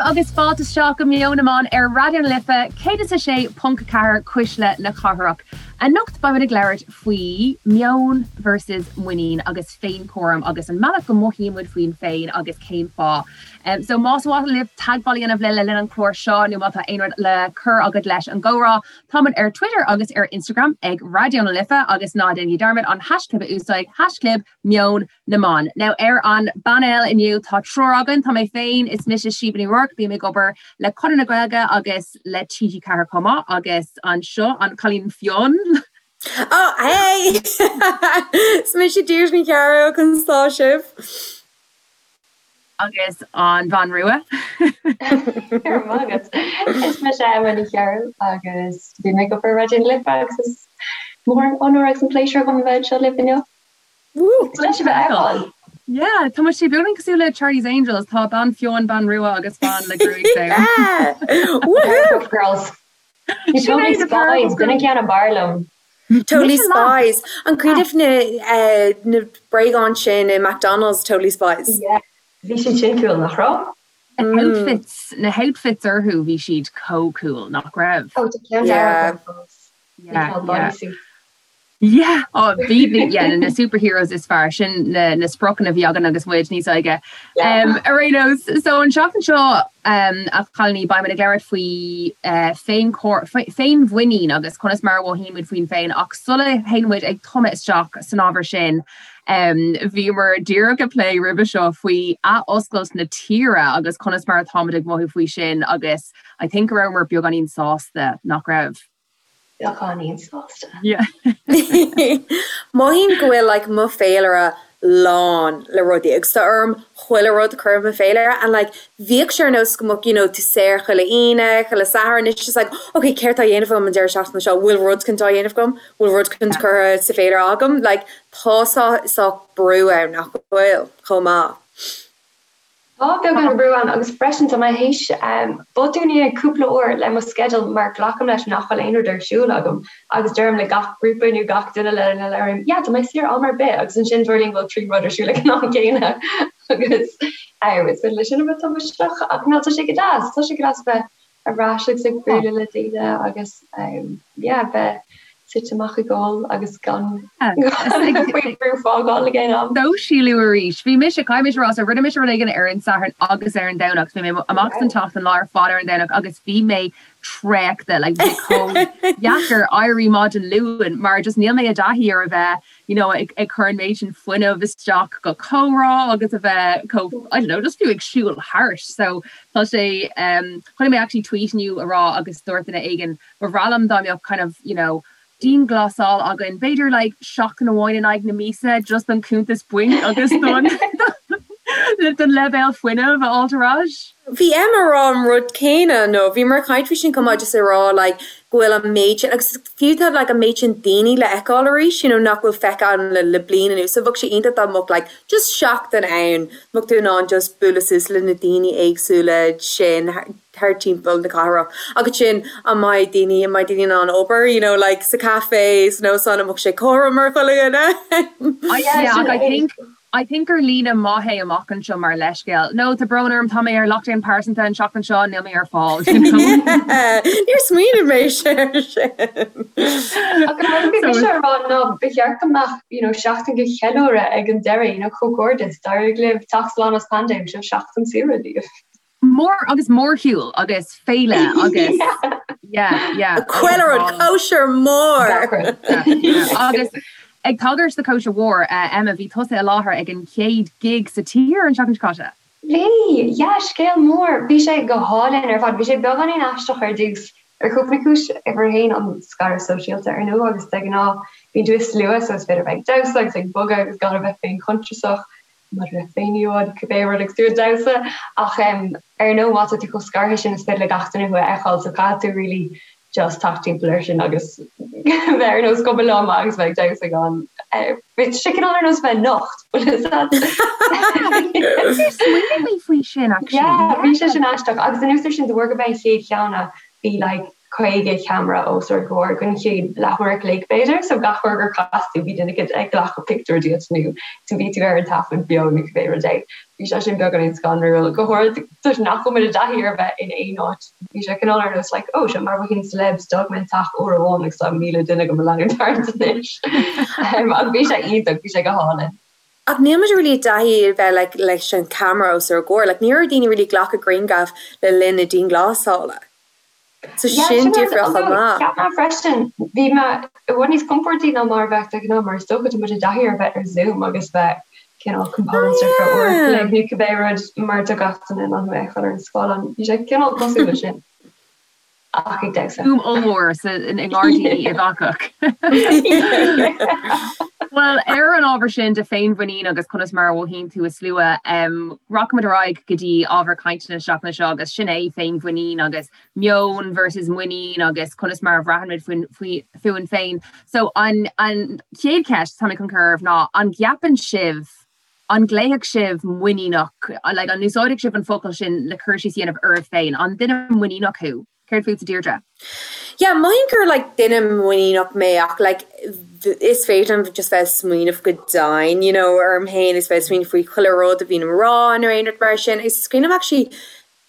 libh agus fáilte isteach go Meon na mBan ar Raidió na Life 106.4 Cuisle na Cathrach. Anocht beimid ag labhairt faoi meon versus muinín agus féinchúram agus an mbealach go mothaíonn muid faoin féin agus cén fáth. So más mhaith libh teagmháil a dhéanamh linn le linn an chláir seo nó má tá aon rud le cur agat leis an gcomhrá, táimid ar Twitter agus ar Instagram ag Raidió na Life agus ná déanaigí dearmad an haischlib a úsáid, haischlib Meon na mBan. Now ar an bpainéal inniu tá triúr againn, tá mé féin, is mise Síomha Ní Ruairc, bím ag obair le Conradh na Gaeilge agus le TG4 chomh maith agus anseo an cailín fionn. Oh hey! Is mise Deirdre Ní Chearúil, conas tá sibh? Agus an bhean rua. Go raibh maith agat. Is mise Emma Ní Chearúil agus bím ag obair i Raidió na Life agus is mór an onóir agus an pléisiúr dhom a bheith anseo libh inniu. Woo! Leis a bheith ann. Yeah, tá muid beagáinín cosúil le Charlie's Angels, tá bean fionn, bean rua agus bean le gruaig donn. Yeah! Woohoo! Powerpuff Girls. Totally Spies, b'in an ceann ab fhearr liom. Totally Spies. An cuimhin libh na eh, na bréagáin sin i McDonald's, Totally Spies? Yeah, bhí siad sin cool, nach raibh? Na outfits, na outfits orthu, bhí siad chomh cool, nach raibh? Oh, tá ceann dearg agam fós. Yeah, yeah. Yeah! Oh, bhí, yeah, na superheroes is fearr, sin na, na spriocanna a bhí againn agus muid níos óige. Um, ar aon nós, so an seachtain seo, um, a chailíní, beimid ag labhairt faoi uh, féinchóir, féinmhuinín agus conas mar a mhothaíonn muid faoin féin, ach sula théann muid ag tumadh isteach san ábhar sin, um, bhíomar díreach ag plé roimhe seo faoi athoscailt na tíre agus conas mar atáimid ag mothú faoi sin agus I think go rabhamar beagáinín sásta, nach raibh? Beagáinín sásta. Mothaím go bhfuil like mo féilire lán le rudaí agus tá orm chuile rud a chur i mo féilire and like bhíodh sé ar nós go mbeadh you know tú saor chuile Aoine, chuile Satharn, it's just like ok céard tá á dhéanamh agam an deireadh seachtaine seo, bhfuil rud éicint á dhéanamh agam, bhfuil rud éicint curtha sa féilire agam, like tá saghas brú ann nach bhfuil chomh maith. Tá beagán brú ann agus freisin tá mé théis botún a dhéanamh cúpla uair le mo sceideal mar glacaim leis nach bhfuil aon rud ar siúl agam agus deirim le gach grúpa nó gach duine lena labhraím yeah tá mé saor am ar bith agus ansin tarlaíonn go bhfuil 3 rud ar siúl ag an am céanna agus is féidir leis sin a bheith tubaisteach ach ná tá sé go deas, tá sé go deas a bheith ar ais agus ag bualadh le daoine agus yeah bheith suite amach ag ól agus gan faoi bhrú fágáil ag aon am. Sóisialú arís. Bhí mise, caithfidh mise a rá, so rinne mise rud éigin ar an Satharn agus ar an Domhnach. Bhí mé amach san tseachtain lá ar fad ar an Domhnach agus bhí mé traochta, like bhí chomh deacair éirí maidin Luain mar just níl mé i dtaithí ar a bheith you know, ag, ag cur an méid sin fuinnimh isteach go comhrá agus a bheith chomh, I don't know, just fiú ag siúl thart. So tá sé, um, chonaic mé actually tweet inniu a rá agus dúirt duine éigin, ba bhreá liom dá mbeadh kind of, you know, dianghlasáil againn, b'fhéidir like seachtain amháin in aghaidh na míosa just don cuntas bainc agus don don leibhéal fuinnimh a fháilt ar ais. Bhí Emma ag rá an rud céanna nó bhíomar ag caint faoi sin chomh maith just ag rá like go bhfuil an méid sin, agus fiú tá like an méid sin daoine le feiceáil arís, you know nach bhfuil feicthe againn le le bliain anuas, so bheadh sé iontach dá mbeadh like just seachtain ann, mbeadh tú in ann just bualadh suas le na daoine éagsúla sin thar timpeall na cathrach. Agus sin, an mbeidh daoine, an mbeidh daoine in ann obair, you know like sa café, san óstán, an mbeadh sé cothrom ar chuile dhuine? Yeah, I think I think gur líne maith é amach anseo mar leithscéal. No, tá brón orm, tá mé ar lockdown pearsanta an tseachtain seo, níl mé ar fáil, you know. Níor smaoinigh mé air sin. Ach an rud a bhí mise a rá ná ba cheart go mbeadh, you know, seachtain de cheiliúradh ag an deireadh, you know, comhghairdeas, d'éirigh libh teacht slán as paindéim, seo seachtain saoire daoibh. Mór agus mórshiúl agus féile agus yeah, yeah. Chuile rud, cóisir mhór! Agus ag tagairt do cóisir mhór, Emma, bhí tusa i láthair ag an chéad gig sa tír an tseachtain seo caite. Bhí! Yeah, scéal mór! Bhí sé go hálainn ar fad. Bhí sé beagáinín aisteach ar dtús, ar chúpla cúis. Uimhir a haon, an scaradh sóisialta, ar ndóigh, agus de ghnáth bíonn tú i slua so is féidir a bheith ag damhsa agus ag bogadh agus gan a bheith féinchuntasach. maidir le féin-íomhá nó cibé rud agus tú ag damhsa ach ar ndóigh má tá tú chomh scartha sin is féidir le gach duine thú a fheiceáil so caithfidh tú really just teacht timpeall air sin agus bheith ar nós cuma liom agus bheith ag damhsa gan bhí sé cineál ar nós bheith nocht bhfuil a fhios agat. Níor smaoinigh mé faoi sin actually. Yeah bhí sé sin aisteach agus anuas air sin de bharr gurb é an chéad cheann é bhí like. 50 ceamara os ár gcomhair don chéad leathuair a chloig b'fhéidir, so gach uair gur chas tú bhí duine éicint ag glacadh pictiúr díot nó tú bhí tú ar an taifead beo nó cibé rud é. Bhí sé sin beagáinín scanrúil, go háirid toisc nach bhfuil muid i dtaithí ar bheith in aon áit. Bhí sé cineál ar nós like oh seo mar bheinn celebs d'fhág mé an teach uair amháin agus tá 1,000 duine do mo leanúint thart anois. Ach bhí sé iontach, bhí sé go hálainn. Ach níl muid really i dtaithí a bheith like leis an camera os ár gcomhair, like ní raibh daoine really ag glacadh grianghraf le linn na dianghlasála. So Yeah, sin sin rud, difriúil chomh although maith. cheap mé freisin, bhí mé i bhfad níos compordaí ná mar a bheadh de ghnáth mar is dócha tá muid i dtaithí ar bheith ar Zoom agus bheith cineál Oh composed ar feadh uair a yeah. chloig nó cibé rud mar tá gach duine in ann thú a fheiceáil ar an scáileán. Bhí sé cineál cosúil leis sin ach ag damhsa. Zoom ollmhór sa i ngairdíní Uíbh Eachach. Bhuel, ar an ábhar sin de féinmhuinín agus conas mar a mhothaíonn tú i slua, rachaimid ar aghaidh go dtí ábhar cainte na seachtaine seo agus sin é féinmhuinín agus meon versus muinín agus conas mar a bhraitheann muid fúinn féin. So an an chéad cheist atá mé chun cur oraibh ná an gceapann sibh, an nglaofadh sibh muiníneach, like an úsáidfeadh sibh an focal sin le cur síos a dhéanamh oraibh féin? An duine muiníneach thú? Céard fútsa Deirdre? Yeah, mothaím gur like duine muiníneach mé ach like is féidir liom just bheith ag smaoineamh go dian, you know, orm féin is bheith ag smaoineamh faoi chuile rud a bhíonn á rá nó aon rud mar sin. Is cuimhin liom actually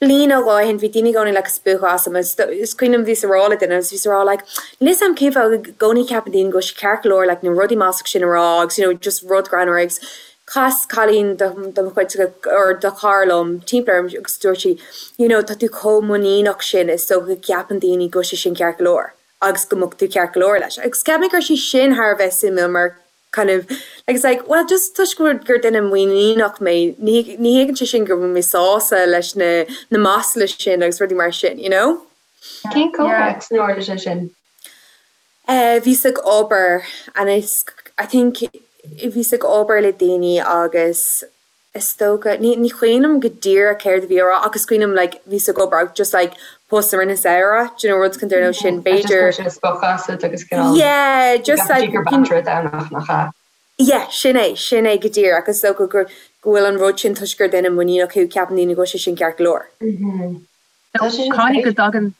bliain nó dhó ó shin bhí daoine i gcónaí like ag spochadh asam agus is cuimhin liom bhíos ag rá le duine agus bhíos ag rá like níl 'fhios a'm cén fáth i gcónaí ceapann daoine go bhfuil sé ceart go leor like na rudaí maslach sin a rá agus you know just rud greannmhar agus Chas cailín de mo chuid or de chara liom timpeall orm agus dúirt sí you know tá tú chomh muiníneach sin is dócha go gceapann daoine go bhfuil sé sin ceart go leor agus go mbeadh tú ceart go leor leis. Agus cheap mé go raibh sé sin thar a bheith suimiúil mar kind of like it's like well just toisc go bhfuil gur duine muiníneach mé ní ní thuigeann sé sin go bhfuil mé sásta leis na na masla sin agus rudaí mar sin you know? Cén comhthéacs inar tharla sé sin? Eh bhíos ag obair and is I think bhíos ag obair le daoine agus is dócha ní ní cuimhin liom go díreach céard a bhí á rá ach is cuimhin liom like bhíos ag obair agus just like post i rith na samhradh do you know rud chun ar nós sin Just b'fhéidir chuir sé spochadh asat agus cineál yeah just like gur b'fhéidir domhnach nach ea. yeah sin é sin é go díreach is dócha gur go bhfuil an rud sin toisc gur duine muiníneach thú ceapann daoine go bhfuil sé sin ceart go leor. Tá sé sin Caithfidh go dtagann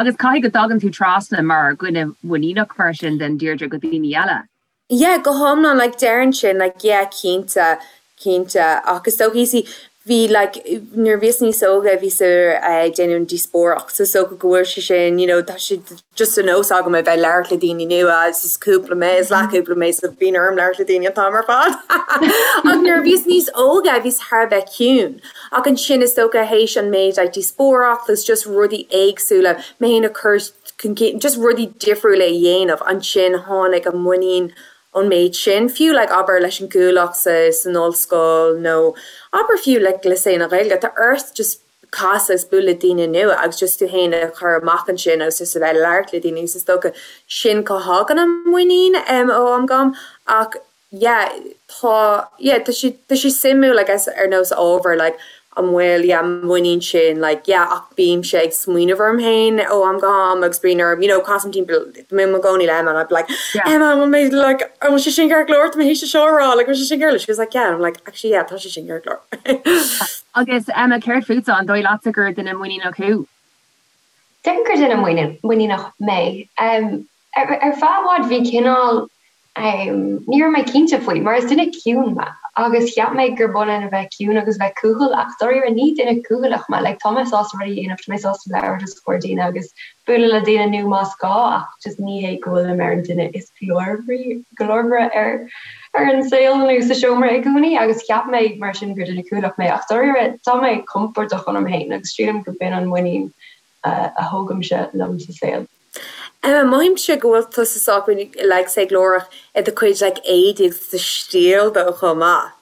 Agus caithfidh go dtagann tú trasna mar dhuine muiníneach mar sin then Deirdre go daoine eile. Yeah, go hiomlán, like déarfainn sin, like yeah, cinnte, cinnte. Ach is dócha, you see, bhí like, nuair a bhíos níos óige bhíos ag déanamh an díospóireacht, so is dócha go bhfuil sé sin, you know, tá sé just de nós agam a bheith ag labhairt le daoine nua agus is cúpla mé, is leathchúpla mé so bíonn orm labhairt le daoine an t-am ar fad. Ach nuair a bhíos níos óige bhíos thar a bheith ciúin. Ach ansin is dócha théis an méid like díospóireacht agus just rudaí éagsúla, mé féin a chur chun cinn, just rudaí difriúla a dhéanamh, ansin tháinig an muinín ón méid sin, fiú like abair leis an gCuallacht sa san ollscoil nó abair fiú like le saol na Gaeilge, tá ort just casadh agus bualadh le daoine nua agus just tú féin a chur amach ansin agus just a bheith ag labhairt le daoine agus is dócha sin cá thagann an muinín ó am go ham ach yeah tá yeah tá sé tá sé suimiúil I guess ar nós ábhar like an bhfuil yeah an muinín sin like yeah ach bímse ag smaoineamh orm féin ó am go ham agus bíonn orm you know casaim timpeall mé i mo gcónaí le Emma and I'd be like Yeah. Emma an bhfuil mé like an bhfuil sé sin ceart go leor tá mé théis seo a rá like an bhfuil sé sin ceart go leor she was like yeah and I'm like actually yeah tá sé sin ceart go leor. Agus Emma céard fútsa an dóigh leatsa gur duine muiníneach thú? Déarfainn gur duine muiníneach mé. Ar feadh i bhfad bhí cineál, ní raibh mé cinnte faoi, mar is duine ciúin mé agus cheap mé gur b'ionann a bheith ciúin agus bheith cúthail ach dáiríre ní duine cúthaileach mé, like tá mé sásta rudaí a dhéanamh, tá mé sásta labhairt os comhair daoine agus bualadh le daoine nua más gá ach just ní hé go bhfuilim ar an duine is glórmhaire ar ar an saol nó sa seomra i gcónaí agus cheap mé mar sin gur duine cúthaileach mé ach dáiríre tá mé compordach ionam féin agus sílim go b'in an muinín a thógaimse liom sa saol. Emma, mothaímse go bhfuil tusa sách like say glórach i do chuid like éadaí agus do stíl though chomh maith.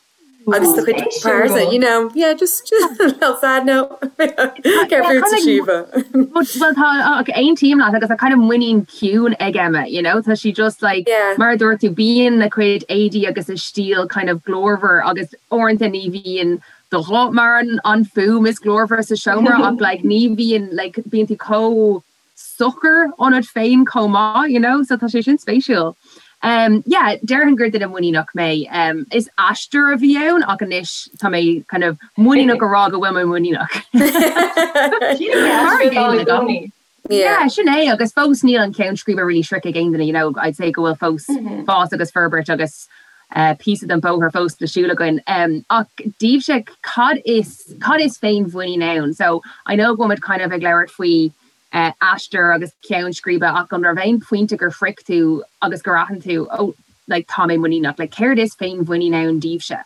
Agus do chuid pearsa, you know, yeah, just just a little side note. Céard fútsa Síomha? Well tá ach aontaím leat agus tá kind of muinín ciúin ag Emma, you know, tá sí just like Yeah. mar a dúirt tú bíonn a cuid éadaí agus a stíl kind of glórmhar agus uaireanta ní bhíonn do ghuth mar an an fuaim is glórmhaire sa seomra ach like ní bhíonn like bíonn tú chomh socair ionat féin chomh maith, you know, so tá sé sin spéisiúil. Um yeah, déarfainn gur duine muiníneach mé. Um is aistear a bhí ann ach anois tá mé kind of muiníneach a rá go bhfuil mé muiníneach. Mar a gcéile agam. Yeah, sin é agus fós níl an ceann scríbe really sroichte ag aon duine, you know, I'd say go bhfuil fós fás agus forbairt agus píosa den bóthar fós le siúl againn. Ach daoibhse, cad is, cad is féinmhuinín ann? So, I know go bhfuil muid kind of ag labhairt faoi aistear agus ceann scríbe ach an raibh aon phointe gur shroich tú agus gur aithin tú, oh, like, tá mé muiníneach? Like, céard is féinmhuinín ann daoibhse?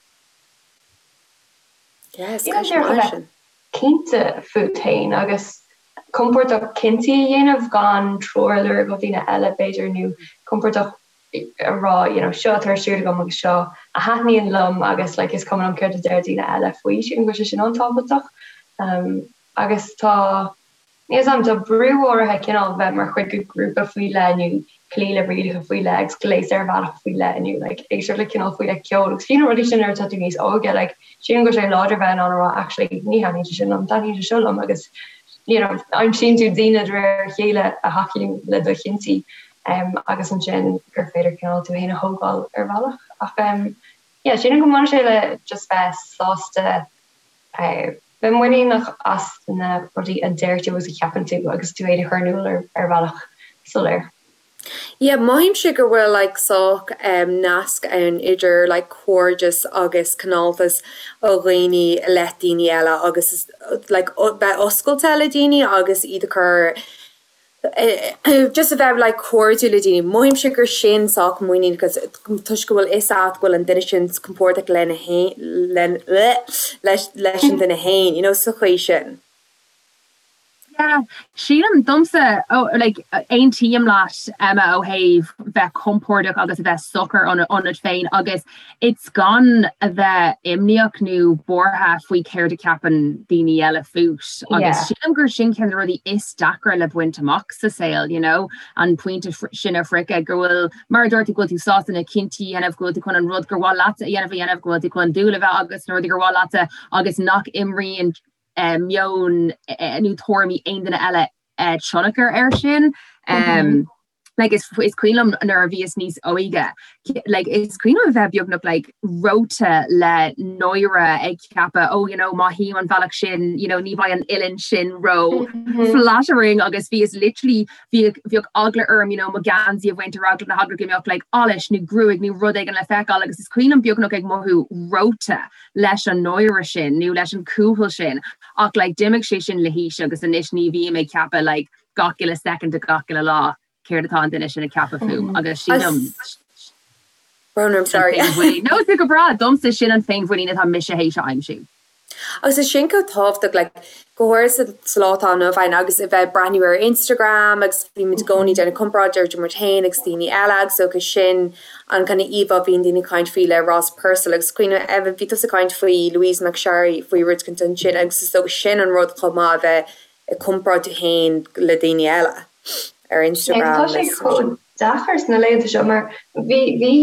Yes, ceist mhaith sin. Cinnte fút féin agus compordach cinntí a dhéanamh gan treoir a lorg ó dhaoine eile, b'fhéidir, nó compordach a rá you know seo atá ar siúl agam agus seo a thaitníonn liom agus like is cuma liom céard a deir daoine eile faoi. Sílim go bhfuil sé sin an-tábhachtach. Agus tá. Níl 's a'm, tá brú áirithe cineál bheith mar chuid de ghrúpa faoi leith nó cloí le rialacha faoi leith agus gléasadh ar bhealach faoi leith nó like éisteacht le cineál faoi leith ceoil agus fiú na rudaí sin nuair atá tú níos óige like sílim go bhfuil sé láidir bheith in ann a rá actually ní thaitníonn sé sin liom, taitníonn sé seo liom agus you know aimsíonn tú daoine de réir a chéile a thacaíonn le do chinntí um agus ansin gur féidir cineál tú féin a thógáil ar bhealach ach um yeah sílim go mbaineann sé le just bheith sásta eh Bheith muiníneach as na rudaí a deir tú agus a cheapann tú agus tú féin a chur in iúl ar bhealach soiléir. Yeah, mothaímse go bhfuil like sách nasc ann idir like cairdeas agus cineáltas ó dhaoine i leith daoine eile agus like bheith oscailte le daoine agus iad a chur just a bheith like cairdiúil le daoine. Mothaímse gur sin sách muinín because toisc go bhfuil fhios agat go bhfuil an duine sin compordach lena fhéin leis leis an duine fhéin, you know, sa chaoi sin. Yeah, sílim domsa oh, like aontaím leat Emma ó thaobh bheith compordach agus a bheith socair ionat féin agus It's gan a bheith imníoch nó buartha faoi céard a cheapann daoine eile fút agus sílim gur sin ceann de na rudaí is deacra le baint amach sa saol, you know, an pointe sin a shroicheadh go bhfuil, mar a dúirt tú, go bhfuil tú sásta na cinntí a dhéanamh, go bhfuil tú chun an rud gur mhaith leatsa a dhéanamh a dhéanamh, go bhfuil tú chun dúil a bheith agat sna rudaí gur mhaith leatsa agus nach imríonn meon nó tuairimí aon duine eile tionchar air sin. Like is is cuimhin liom nuair a bhíos níos óige, like is cuimhin liom a bheith beagnach like reoite le náire ag ceapadh oh you know má théim an bealach sin you know ní bheidh an uillinn sin ró flattering agus bhíos literally bhíodh bhíodh eagla orm you know mo gheansaí a bhaint ar eagla na heagla go mbeadh like allas nó gruaig nó rud éigin le feiceáil agus is cuimhin liom beagnach ag mothú reoite leis an náire sin nó leis an cúthail sin ach like d'imigh sé sin le haois agus anois ní bhím ag ceapadh like gach uile soicind de gach uile lá céard atá an duine sin ag ceapadh fúm agus sílim Brón orm, sorry. No, tá go breá, domsa sin an féinmhuinín atá mise théis a aimsiú. Agus is sin chomh tábhachtach, like, go háirithe sa lá atá inniu ann agus a bheith ag breathnú ar Instagram agus bímid i gcónaí ag déanamh comparáid idir muid féin agus daoine eile agus okay sin an kind of íomhá a bhíonn daoine ag caint faoi le Ross Purcell agus cuimhne Eva bhí tusa ag caint faoi Louise McSharry faoi rud éicint ansin agus is dócha sin an rud chomh maith a bheith ag comparáid tú féin le daoine eile ar Instagram. Tá sé chomh deacair sna laethanta seo mar bhí bhí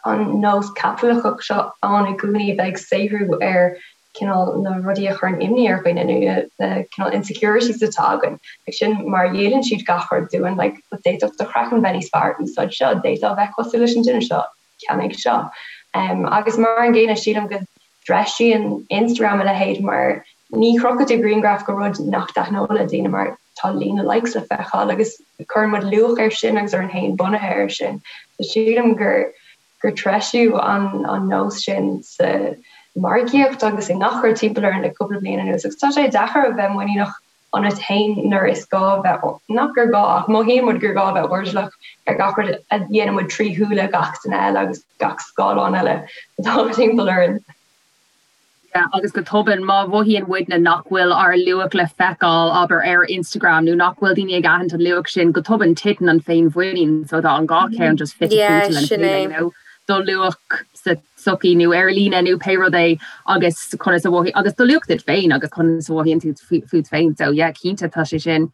an nós caipitleachach seo ann i gcónaí bheith ag saothrú ar cineál na rudaí a chuireann imní ar dhaoine nó na cineál insecurities atá againn. Like sin mar a dhíolann siad gach rud dúinn, like d'fhéadfadh do chraiceann bheith níos fearr, úsáid seo, d'fhéadfá bheith cosúil leis an duine seo, ceannaigh seo. Agus mar an gcéanna sílim go dtreisíonn Instagram a leithéid mar ní chrochfaidh tú grianghraf de rud nach dtaitneodh le daoine mar tá líon na likes le feiceáil agus cuireann muid luach air sin agus orainn féin bunaithe air sin. So sílim gur gur treisíodh an an nós sin sa margaíocht agus i ngach rud timpeall orainn le cúpla bliain anuas agus tá sé deacair a bheith muiníneach ionat féin nuair is gá bheith, nach gur gá ach mothaíonn muid gur gá a bheith airdeallach ar gach rud a dhéanann muid trí shúile gach duine eile agus gach scáileán eile atá timpeall orainn. Yeah, agus go tobann, má mhothaíonn muidne nach bhfuil ár luach le feiceáil, abair, ar Instagram nó nach bhfuil daoine ag aithint an luach sin, go tobann titeann an féinmhuinín, so tá an dhá cheann just fite Yeah, fuaite lena sin chéile, é. you know, do luach sa tsochaí nó ar líne nó pé rud é agus conas a mhothaíonn, agus do luach duit féin agus conas a mhothaíonn tú fút féin. So yeah, cinnte tá sé sin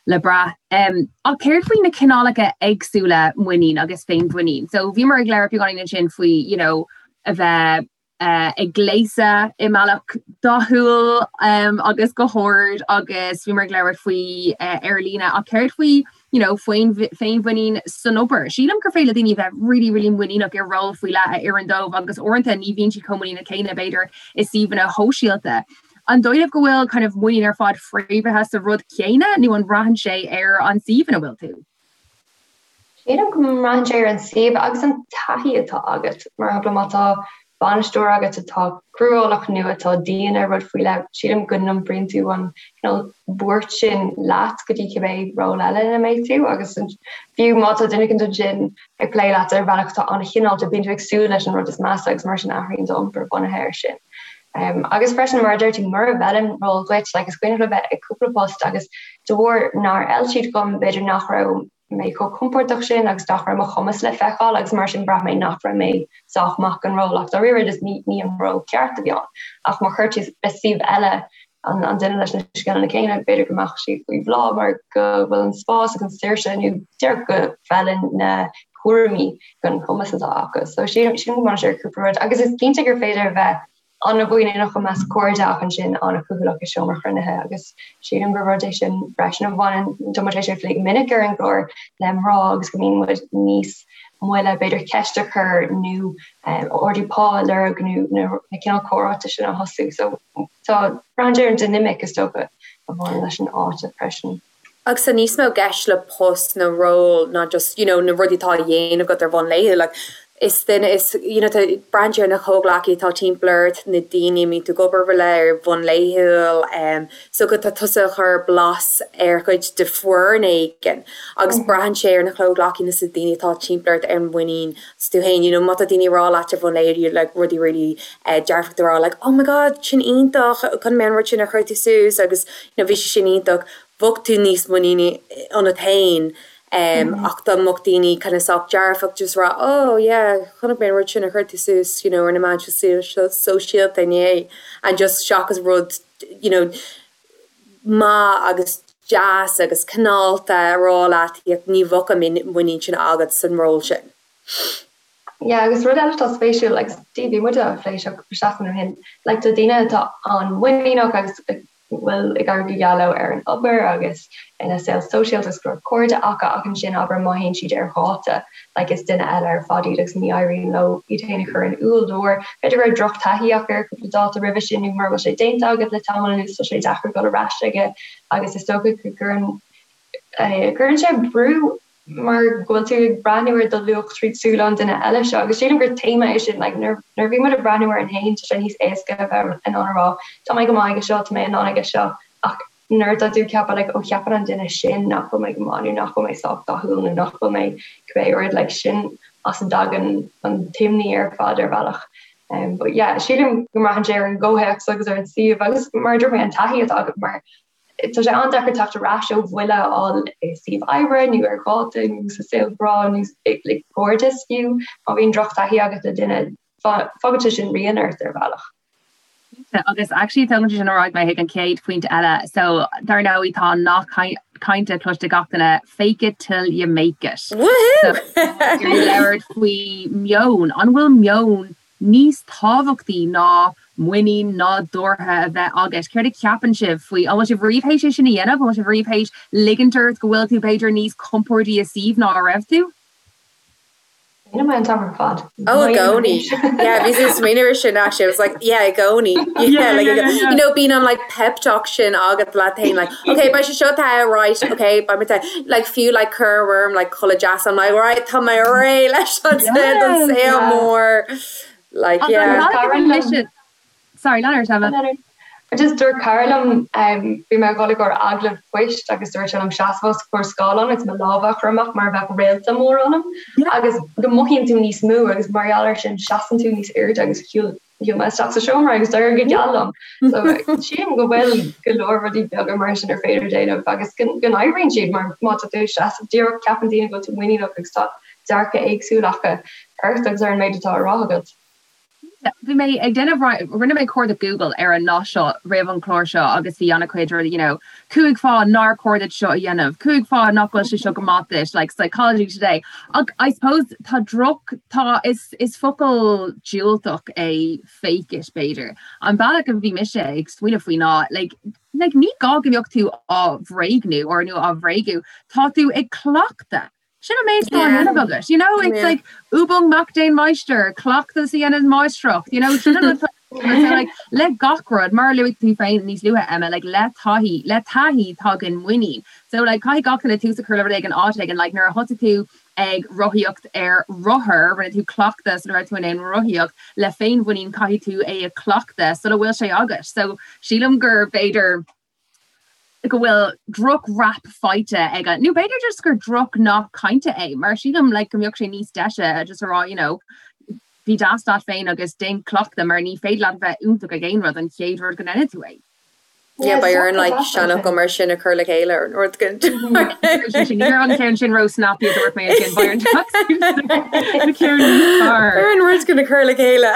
le brath. Um, ach céard faoi na cineálacha éagsúla muinín agus féinmhuinín? So bhíomar ag labhairt beagáinín ansin faoi, you know, a bheith uh, ag gléasadh i mbealach dathúil um, agus go hard agus bhíomar ag labhairt faoi uh, ar líne ach céard faoi you know, féinmhuinín san obair. Sílim gur féidir le daoine bheith really, really muiníneach i ról faoi leith a oireann dóibh agus uaireanta ní bhíonn siad chomh muiníneach céanna, b'fhéidir, i suíomhanna shóisialta. An dóigh libh go bhfuil kind of muinín ar fad fréamhaithe sa rud céanna nó an mbraitheann sé ar an suíomh ina bhfuil tú? Sílim go mbraitheann sé ar an suíomh agus an taithí atá agat. Mar shampla, má tá bainisteoir agat atá cruálach nó atá dian ar rud faoi leith, sílim go n-iompraíonn tú an cineál buairt sin leat go dtí cibé ról eile ina mbeidh tú agus fiú má tá duine éicint ansin ag plé leat ar bhealach atá an-chineálta, bíonn tú ag súil leis an rud is measa agus mar sin athraíonn d'iompar bunaithe air sin. Agus freisin, mar a deir tú, mura bhfeileann ról dhuit, like is cuimhin liom a bheith ag cúpla post agus de bharr nár fheil siad dom, b'fhéidir nach raibh mé chomh compordach sin agus nach raibh mo chumas le feiceáil agus mar sin bhraith mé nach raibh mé sách maith don ról ach dáiríre just ní ní an ról ceart a bhí ann. Ach má chuir tú le suíomh eile an an duine leis na scileanna céanna b'fhéidir go mbeadh siad faoi bhláth mar go bhfuil an spás agus an saoirse nó díreach go bhfeileann na cúraimí don chumas atá acu. So sílim sílim go mbaineann sé ar cúpla rud agus is cinnte gur féidir a bheith an-mhuiníneach i measc cairde ach ansin an-chúthaileach i seomra cruinnithe agus sílim gur rud é sin freisin a bhaineann, tá muid tar éis é a phlé go minic ar an gclár, le mná agus go mbíonn muid níos moille b'fhéidir ceist a chur nó ardú pá a lorg nó na cineál comhráite sin a thosú. So tá, braitheann sé ar an dinimic is dócha a bhaineann leis an áit freisin. Agus tá níos mó i gceist le post nó ról ná just, you know, na rudaí atá á dhéanamh agat ar bhonn laethúil. Like, is duine, is, you know, tá, braitheann sé ar na comhghleacaithe atá timpeall ort, na daoine a mbíonn tú ag obair le ar bhonn laethúil, um, so go tá tusa ag cur blas ar chuid de foireann éigin agus braitheann sé ar na comhghleacaithe nó na daoine atá timpeall ort ar an muinín sa tú féin, you know, má tá daoine ag rá leat ar bhonn laethúil, like, rudaí really eh, dearfach a rá, like, oh my god, sin iontach, chonaic mé an rud sin a chuir tú suas agus, you know, bhí sé sin iontach, bheadh tú níos muiníní ionat féin ach dá mbeadh daoine kind of sách dearfach just rá oh yeah chonaic mé an rud sin a chuir tú suas you know ar na meáin sóisialta inné and just seachas rud you know maith agus deas agus cineálta a rá leat ní bheadh an muinín sin agat san ról sin. Yeah agus rud eile atá spéisiúil agus bhí muid á phlé seo cúpla seachtain ó shin like tá daoine atá an-mhuiníneach agus bhfuil ag éirí go geal leo ar an obair agus ina saol sóisialta agus go leor cairde acu ach ansin abair má théann siad ar dháta like is duine eile ar fad iad agus ní éiríonn leo iad féin a chur in iúl de bharr b'fhéidir go raibh drochtaithí acu ar cúpla dáta roimhe sin nó mura bhfuil sé déanta agat le tamall anuas tá sé deacair dul ar ais aige agus is dócha go gcuireann cuireann sé brú mar go bhfuil tú ag breathnú ar do luach tríd súile an duine eile seo agus sílim gur téama é sin like nuair nuair a bhíonn muid ag breathnú orainn féin tá sé níos éasca a bheith in ann a rá tá mé go maith aige seo, tá mé in ann aige seo ach nuair atá tú ag ceapadh like ó cheapann an duine sin nach bhfuil mé go maith nó nach bhfuil mé sách dathúil nó nach bhfuil mé cibé rud like sin as a dtagann an t-imní ar fad ar bhealach. Um, but yeah, sílim go mbraitheann sé ar an gcomhthéacs agus ar an suíomh agus mar a dúirt mé an taithí atá agat mar Tá sé an-deacair teacht ar ais ó bhuille a fháil i suíomh oibre nó ar dháta nó sa saol grá nó le cairdeas fiú. Má bhíonn drochtaithí agat le duine, fágann sé sin rian ort ar bhealach. Cinnte, agus actually tógann sé sin ar aghaidh mé chuig an chéad phointe eile. So, dar ndóigh, tá an nath cainte cloiste ag gach duine, fake it till you make it. Woohoo! So, ag labhairt faoi meon, an bhfuil meon níos tábhachtaí ná muinín nádúrtha a bheith agat. Céard a cheapann sibh faoi? An bhfuil sibh riamh théis é sin a dhéanamh? An bhfuil sibh riamh théis ligint ort go bhfuil tú b'fhéidir níos compordaí i suíomh ná a raibh tú? Déanaim é an t-am ar fad. Oh, i gcónaí. Yeah, bhí mé ag smaoineamh ar sin actually. I was like, yeah, i gcónaí. Yeah, like, you know, bíonn an like pep talk sin agat leat féin, like, okay, beidh sé seo te, right, okay, beidh mé te. Like, fiú like cur orm like culaith deas, I'm like, right, tá mé réidh leis an don saol mór. Like, yeah. Cara liom. Sorry, lean ort, Emma. Just dúirt cara liom, bhí mé ag dul i gcomhair agallamh poist agus dúirt sé liom seasamh os comhair scáileáin agus mo lámha a chur amach mar a bheadh réalta mór ionam agus go mothaíonn tú níos mó agus mar gheall air sin seasann tú níos airde agus shiúil Shiúil mé isteach sa seomra agus d'éirigh go geal liom. So sílim go bhfuil go leor rudaí beaga mar sin ar féidir déanamh agus go n-oibríonn siad mar má tá tú ag seasamh díreach ceapann daoine go bhfuil tú muiníneach agus tá dearcadh éagsúil acu ort agus ar an méid atá á rá agat. Bhí mé ag déanamh, rinne mé cuardach Google ar an nath seo roimh an chlár seo agus bhí an-chuid rudaí, you know, 5 fáth nár chóir duit seo a dhéanamh, 5 fáth nach bhfuil sé seo go maith duit, like Psychology Today. Ach I suppose tá droch, tá, is, is focal diúltach é fake it b'fhéidir. An bealach a bhí mise ag smaoineamh faoi ná like, like ní gá go mbeadh tú á bhréagnú or nó á bhréagnú, tá tú ag cleachtadh. Sin an méid atá á dhéanamh agat, you know, it's like Übung macht den Meister, cleachtas a dhéanann máistreacht, you know, sin an rud atá. So like le gach rud, mar a luaigh tú féin níos luaithe Emma, like le taithí, le taithí tagann muinín. So like caithfidh gach duine tús a chur le rud éigin áit éigin, like nuair a thosaigh tú ag rothaíocht ar rothar, rinne tú cleachtadh sula raibh tú in ann rothaíocht, le féinmhuinín caithfidh tú é a chleachtadh sula bhfuil sé agat. So sílim gur b'fhéidir go bhfuil droch rap faighte ag an, nó b'fhéidir just gur droch nath cainte é, mar sílim like go mbeadh sé níos deise just a rá you know bí deas leat féin agus déan cleachtadh mar ní féidir leat a bheith iontach ag aon rud an chéad rud go ndéanann tú é. Yeah, beidh orainn like seanfhocal mar sin a chur le chéile ar an rud go Ní raibh an ceann sin ró snappy a dúirt mé ansin, beidh orainn na ceann níos fearr. Ar an rud go na chur le chéile.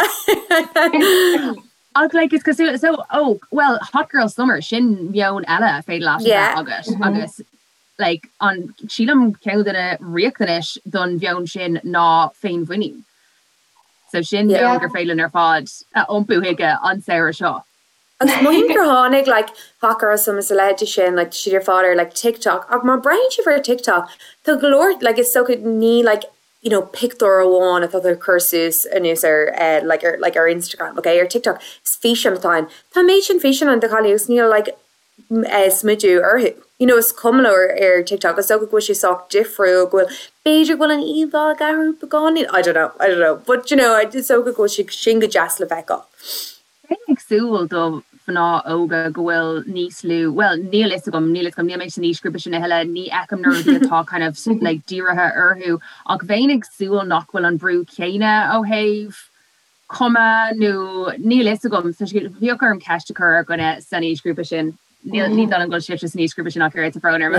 Ach like is cosúil so oh well Hot Girl Summer sin meon eile féidir leat a bheith agat agus like an sílim ceann de na riachtanais don mheon sin ná féinmhuinín. So sin meon gur féidir linn ar fad a iompú chuige an samhradh seo. Agus mothaím gur tháinig like Hot Girl Summer is a leithéidí sin like tá siad ar fad ar like TikTok ach má breathnaíonn sibh ar TikTok tá go leor like is dócha ní like you know pictiúr amháin atá tú ag cur suas anuas ar eh like ar like ar Instagram ok ar TikTok is físeán atá ann tá an méid sin físeán ann de chailíní agus níl like eh smideadh orthu you know is cuma leo ar ar TikTok is dócha go bhfuil sé sách difriúil go bhfuil b'fhéidir go bhfuil an íomhá ag athrú beagáinín I don't know I don't know but you know is dócha go bhfuil sé sin go deas le feiceáil. Bheinn ag súil do mhná óga go bhfuil níos lú, bhuel, níl fhios agam, níl fhios agam, níl mé san aoisghrúpa sin a thuilleadh, ní fheicim na rudaí atá kind of like dírithe orthu, ach bheinn ag súil nach bhfuil an brú céanna ó thaobh cuma nó níl fhios agam, bheadh orm ceist a chur ar dhuine san aoisghrúpa sin. Níl ní dóigh liom go bhfuil sibhse san aoisghrúpa sin ach oiread, tá brón orm.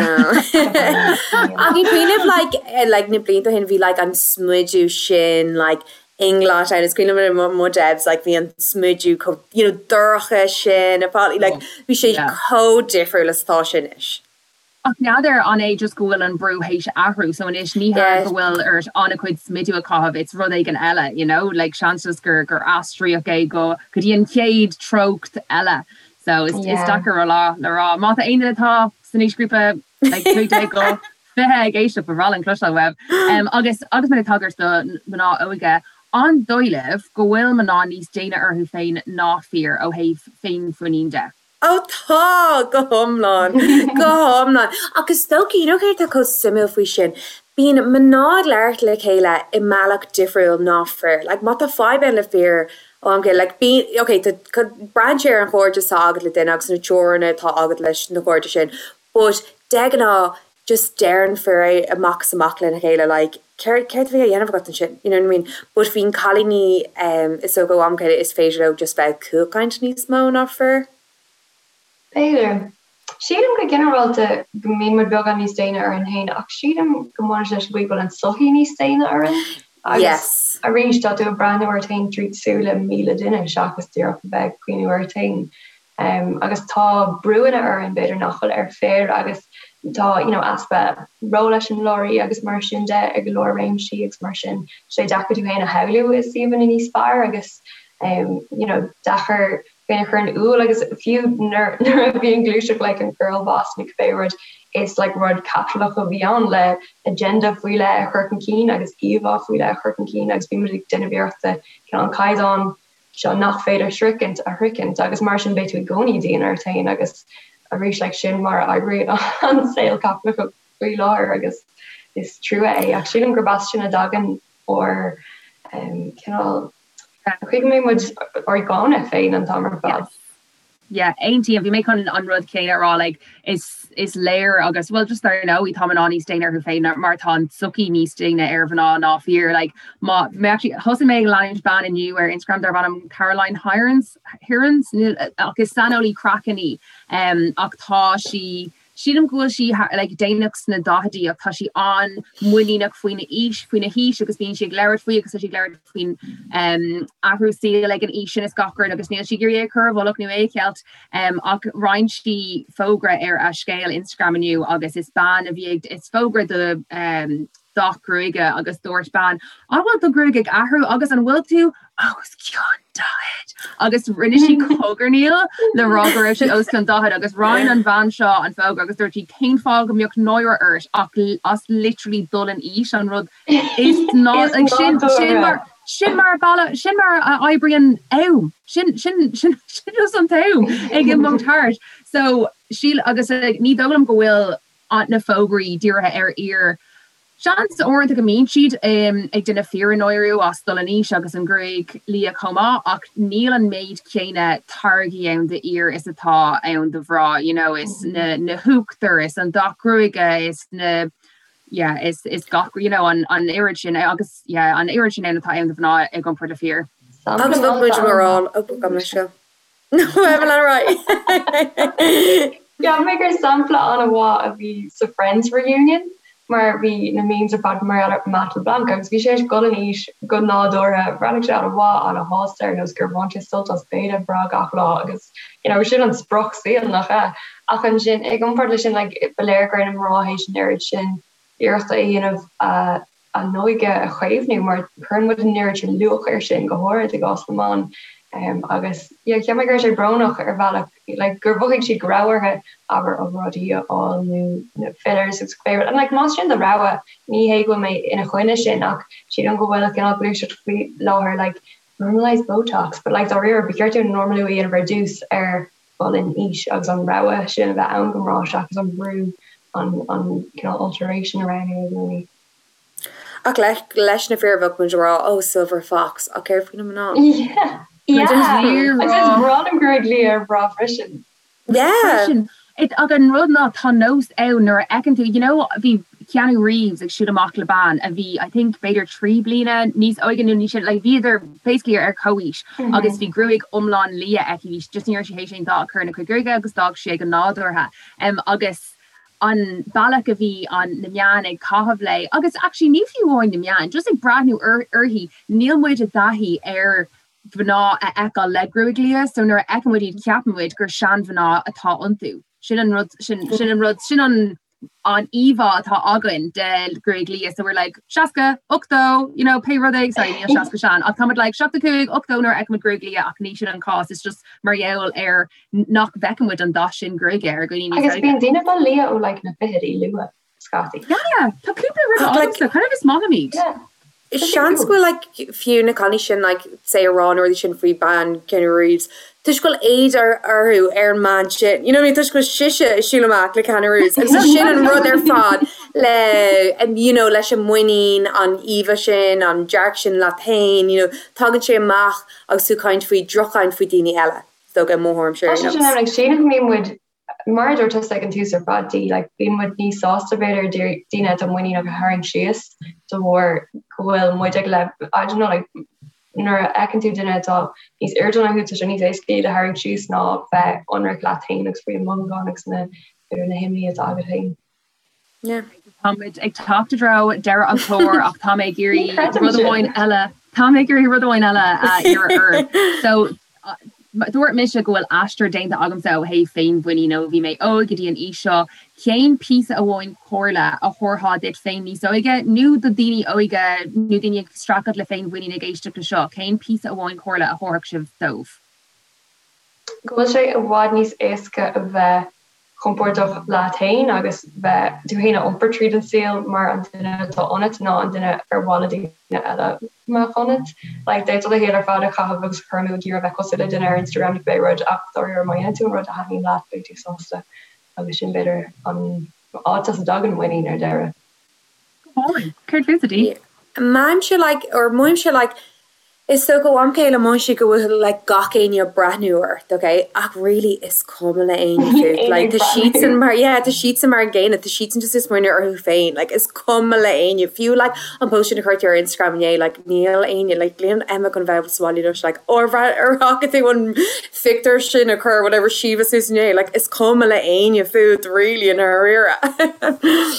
Ach ag cuimhneamh like eh, like na blianta ó shin bhí like an smideadh sin like inglot ann is cuimhin liom mo Debs like bhí an smideadh chomh you know dorcha sin a fáil like bhí sé chomh difriúil is atá sé anois. Ach n'fheadar an é just go bhfuil an brú théis athrú so anois ní hea go bhfuil ort an-chuid smideadh a chaitheamh it's rud éigin eile you know like seans just gur gur aistríodh é go go dtí an chéad treocht eile so is is deacair a rá le rá. Má tá aon duine atá san aoisghrúpa like 15 go 20 ag éisteacht ba bhreá linn cloisteáil uaibh. Um agus agus muid ag tagairt do mná óga an dóigh libh go bhfuil mná níos déine orthu féin ná fir ó thaobh féinmhuinín de? Ó tá, go hiomlán, go hiomlán. Ach is dócha, you know céard atá chomh suimiúil faoi sin? Bíonn mná ag labhairt le chéile i mbealach difriúil ná fir. Like má tá fadhb ann le fir ó am go chéile, like bíonn, ok, tá, braitheann sé ar an chairdeas atá agat le duine agus na teorainneacha atá agat leis na cairde sin, but de ghnáth just deireann fir é amach is amach lena chéile like céard céard a bhí á dhéanamh agat ansin you know what I mean but bíonn cailíní em is dócha ó am go chéile is féidir leo just bheith ag cúlchaint níos mó ná fir. B'fhéidir. Sílim go ginearálta go mbíonn muid beagán níos déine orainn féin ach sílim go mbaineann sé leis an gcaoi go bhfuil an tsochaí níos déine orainn agus Yes. arís tá tú ag breathnú ort féin tríd súile 1,000 duine seachas díreach a bheith ag cuimhniú ort féin. Agus tá brúanna orainn b'fhéidir nach bhfuil ar fir agus tá you know easpa róleiseamláirí agus mar sin de i go leor réimsí agus mar sin tá sé deacair tú féin a shamhlú i suíomhanna níos fearr agus you know deacair féin a chur in iúl agus fiú nuair nuair a bhí an gluaiseacht like an girl boss nó cibé rud is like rud caipitleach a bhí ann le agenda faoi leith a chur chun cinn agus íomhá faoi leith a chur chun cinn agus bhí muid ag déanamh iarrachta cineál an caighdeán seo nach féidir sroichint a shroichint agus mar sin beidh tú i gcónaí dian ort féin agus arís like sin mar a oibríonn an saol caipitleach faoi láthair agus is trua é ach sílim gurb as sin a dtagann ár cineál chaoi go mbíonn muid ár gcáineadh féin an t-am ar fad. Yeah, aontaím. Bhí mé chun an rud céanna a rá, like, is, is léir agus, well, just dar ndóigh, tá mná níos déine orthu féin mar tá an tsochaí níos déine ar mhná ná fir. Like, má, mé actually, thosaigh mé ag leanúint bean inniu ar Instagram darb ainm Caroline Hirons, Hirons? Níl, ach is saineolaí craicinn í, um, ach tá sí, Sílim go bhfuil sí like déanach sna daichidí ach tá sí an-mhuiníneach faoina aois, faoina haois agus bíonn sí ag labhairt faoi agus tá sí ag labhairt faoin um athrú saoil ag an aois sin is gach rud agus níl sí ag iarraidh é a chur i bhfolach nó é a cheilt um ach roinn sí fógra ar a scéal Instagram inniu agus is bean a bhí ag is fógra do um dath gruaige agus dúirt bean, An bhfuil do ghruaig ag athrú agus an bhfuil tú os cionn 40? Agus rinne sí cogarnaíl le rá go raibh sí os cionn 40 agus roinn an bhean seo an fógra agus dúirt sí cén fáth go mbeadh náire ort ach as literally dul in aois an rud is ná like sin sin mar. Sin mar a sin mar a oibríonn am. Sin sin sin sin just an t-am ag imeacht thart. So síl agus ní dóigh liom go bhfuil na fógraí dírithe ar fhir. Seans uaireanta go mbíonn siad ag déanamh fir a náiriú as dul in aois agus an ghruaig liath chomh maith ach níl an méid céanna táirgí ann d'fhir is atá ann do mhná, you know, is na na huachtair is an dath gruaige is na yeah is is gach you know an an oiread sin agus yeah an oiread sin ann atá ann do mhná i gcomparáid le fir. Agus bheadh muid mar all ó gabh mo leithscéal. Evelyn right. Cheap mé gur sampla an-mhaith a bhí sa Friends reunion mar bhí na memes ar fad mar gheall ar Matt LeBlanc agus bhí sé ag dul in aois go nádúrtha, bhreathnaigh sé an-mhaith, an-shásta ar nós gur bhain sé sult as béile breá gach lá agus you know sin an sprioc saoil nach ea? Ach ansin i gcomparáid leis sin like ba léir go raibh na mná théis an oiread sin iarrachta a dhéanamh a a n-óige a chaomhnú mar cuireann muid an oiread sin luach air sin, go háirid i gcás na mban. Agus yeah cheap mé go raibh sé brónach ar bhealach like gur mhothaigh siad go raibh orthu abair obráidí a fháil nó na fillers agus cibé rud. And like más sin do rogha ní hé go bhfuil mé ina choinne sin ach sílim go bhfuil cineál gluaiseacht faoi láthair like normalise Botox but like dáiríre ba cheart dúinn normalú a dhéanamh ar dtús ar dhul in aois agus an rogha sin a bheith ann do mhná seachas an brú an an cineál alteration a roghnú i gcónaí. Ach leis na fir bheadh muid ag rá oh silver fox ach céard faoi na mná? Yeah yeah agus is breá liom gruaig liath ar mhná freisin. Yeah. Freisin. Ach an rud ná tá nós ann nuair a fheiceann tú you know bhí Keanu Reeves ag siúl amach le bean a bhí I think b'fhéidir 3 bliana níos óige nó níos sine like bhíodar basically ar comhaois agus bhí gruaig iomlán liath aici bhí just ní raibh sí théis aon dath a chur ina cuid gruaige agus d'fhág sí é go nádúrtha um agus an bealach a bhí an na meáin ag caitheamh léi agus actually ní fiú amháin na meáin just ag breathnú uirthi níl muid i dtaithí ar mhná a fheiceáil le gruaig liath so nuair a fheiceann muid iad ceapann muid gur seanmhná atá iontu. Sin an rud sin sin an rud sin an an íomhá atá againn de ghruaig liath so we're like 60, 80, you know pé rud é sorry níl 60 sean ach táimid like 75, 80 nuair a fheiceann muid gruaig liath ach ní sin an cás it's just mar gheall ar nach bhfeiceann muid an dath sin gruaige ar dhaoine níos óige. Agus bíonn daoine ag dul liath ó like na fichidí luath. scaití. Yeah, tá cúpla rud agamsa, kind of is maith liom iad. Yeah. Seans go bhfuil like fiú na cailíní sin like say ag rá na rudaí sin faoi bean Keanu Reeves toisc go bhfuil éad orthu ar an mbean sin. You know what I mean? Toisc go bhfuil sise ag siúl amach le Keanu Reeves agus sin an rud ar fad le you know leis an muinín, an íomha sin, an dearcadh sin leat féin, you know, tagann sé amach agus tú ag caint faoi droch-chaint faoi daoine eile. Is dócha i mo thuairimse ar aon nós. Tá sé sin ann, like sílim go mbíonn muid Mar a dúirt tusa ag an tús ar fad, Dee, like, bíonn muid níos sásta b'fhéidir daoine atá muiníneach a tharraingt síos de bharr go bhfuil muid ag le, I don't know, like, nuair a fheiceann tú duine atá níos airde ná thú, tá sé níos éasca iad a tharraingt síos ná bheith ionraic leat féin agus faoi na mothúcháin agus na, b'fhéidir na himní atá agat féin. Táimid ag teacht i dtreo deireadh an chláir ach tá mé ag iarraidh rud amháin eile, tá mé ag iarraidh rud amháin eile a iarraidh oraibh. So, dúirt mise go bhfuil aistear déanta agamsa ó thaobh féinmhuinín ó bhí mé óg go dtí an aois seo. Cén píosa amháin comhairle a thabharfá duit féin níos óige nó do daoine óga nó daoine ag streachailt le féinmhuinín ag éisteacht le seo, cén píosa amháin comhairle a thabharfadh sibh dóibh? Go bhfuil sé i bhfad níos éasca a bheith compordach leat féin agus bheith tú féin a iompar tríd an saol mar an duine atá ionat ná an duine ar mhaith le daoine eile go mbeadh ionat. Like, d'fhéadfá do shaol ar fad a chaitheamh agus a chur amú ag iarraidh bheith cosúil le duine ar Instagram nó pé rud ach dáiríre má dhéanann tú an rud a thaitníonn leat beidh tú sásta agus sin b'fhéidir an áit as a dtagann muinín ar deireadh. Go hálainn. Céard fútsa, Dee? Mothaímse like, or mothaímse like, Is dócha ó am go chéile mothaíonn sé go bhfuil like gach éinne ag breathnú ort, ok? Ach really is cuma le éinne fút. Like tá siadsan mar, yeah, tá siadsan mar an gcéanna, tá siadsan just ag smaoineamh orthu féin. Like is cuma le éinne. Fiú like an post sin a chuir tú ar Instagram inné, like níl éinne, like níl Emma chun bheith sa bhaile anois like oh ar ar fhaca tú an phictiúr sin a chuir whatever Síomha suas inné, like is cuma le éinne fút really i ndáiríre.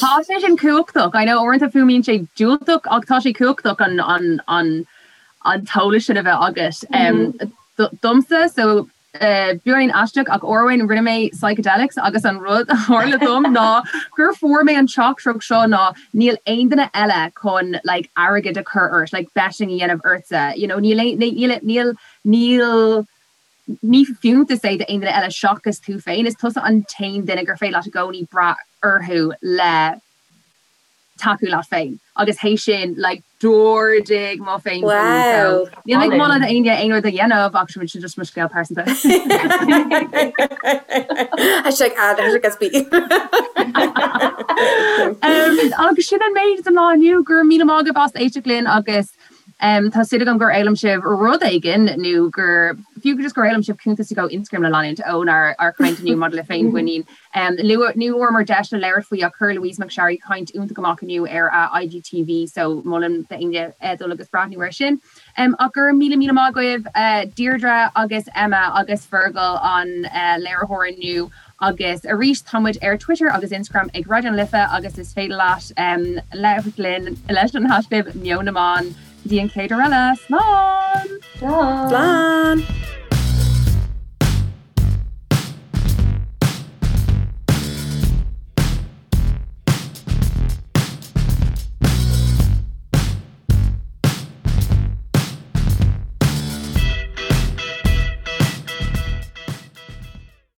Tá sé sin cumhachtach. I know uaireanta fuaimíonn sé diúltach ach tá sé cumhachtach an an an an t-eolas sin a bheith agat. Domsa, so beagáinín aisteach ach uair amháin rinne mé psychedelics agus an rud a tharla dom ná gur fuair mé an teachtaireacht seo ná níl aon duine eile chun like airgead a chur ort, like betting a dhéanamh ortsa, you know níl aon níl níl níl ní fiúntas é d'aon duine eile seachas tú féin, is tusa an t-aon duine gur féidir leat i gcónaí brath orthu le. Tacú leat féin agus théis sin like d'ardaigh mo féin Wow. so níl mé ag moladh d'éinne aon rud a dhéanamh ach sin just mo scéal pearsanta. Hashtag ad hashtag SB. Um, agus sin an méid don lá inniu go raibh míle maith agaibh as éisteacht linn agus um, tá súil agam gur fhoghlaim sibh rud éigin nó gur fiú just gur fhoghlaim sibh cuntas go Instagram le leanúint ónár ár chaint inniu maidir le féinmhuinín. Ní bhfuaireamar deis le labhairt faoi ach chuir Louise McSharry caint iontach amach inniu ar a IGTV so molaim d'éinne dul agus breathnú air sin. Ach go raibh míle míle maith agaibh Deirdre agus Emma agus Fergal an léiritheoir inniu agus arís tá muid ar Twitter agus Instagram ag Raidió na Life agus is féidir leat labhairt linn leis an haischlib Meon na mBan. Go dtí an chéad uair eile, slán! Slán! Slán!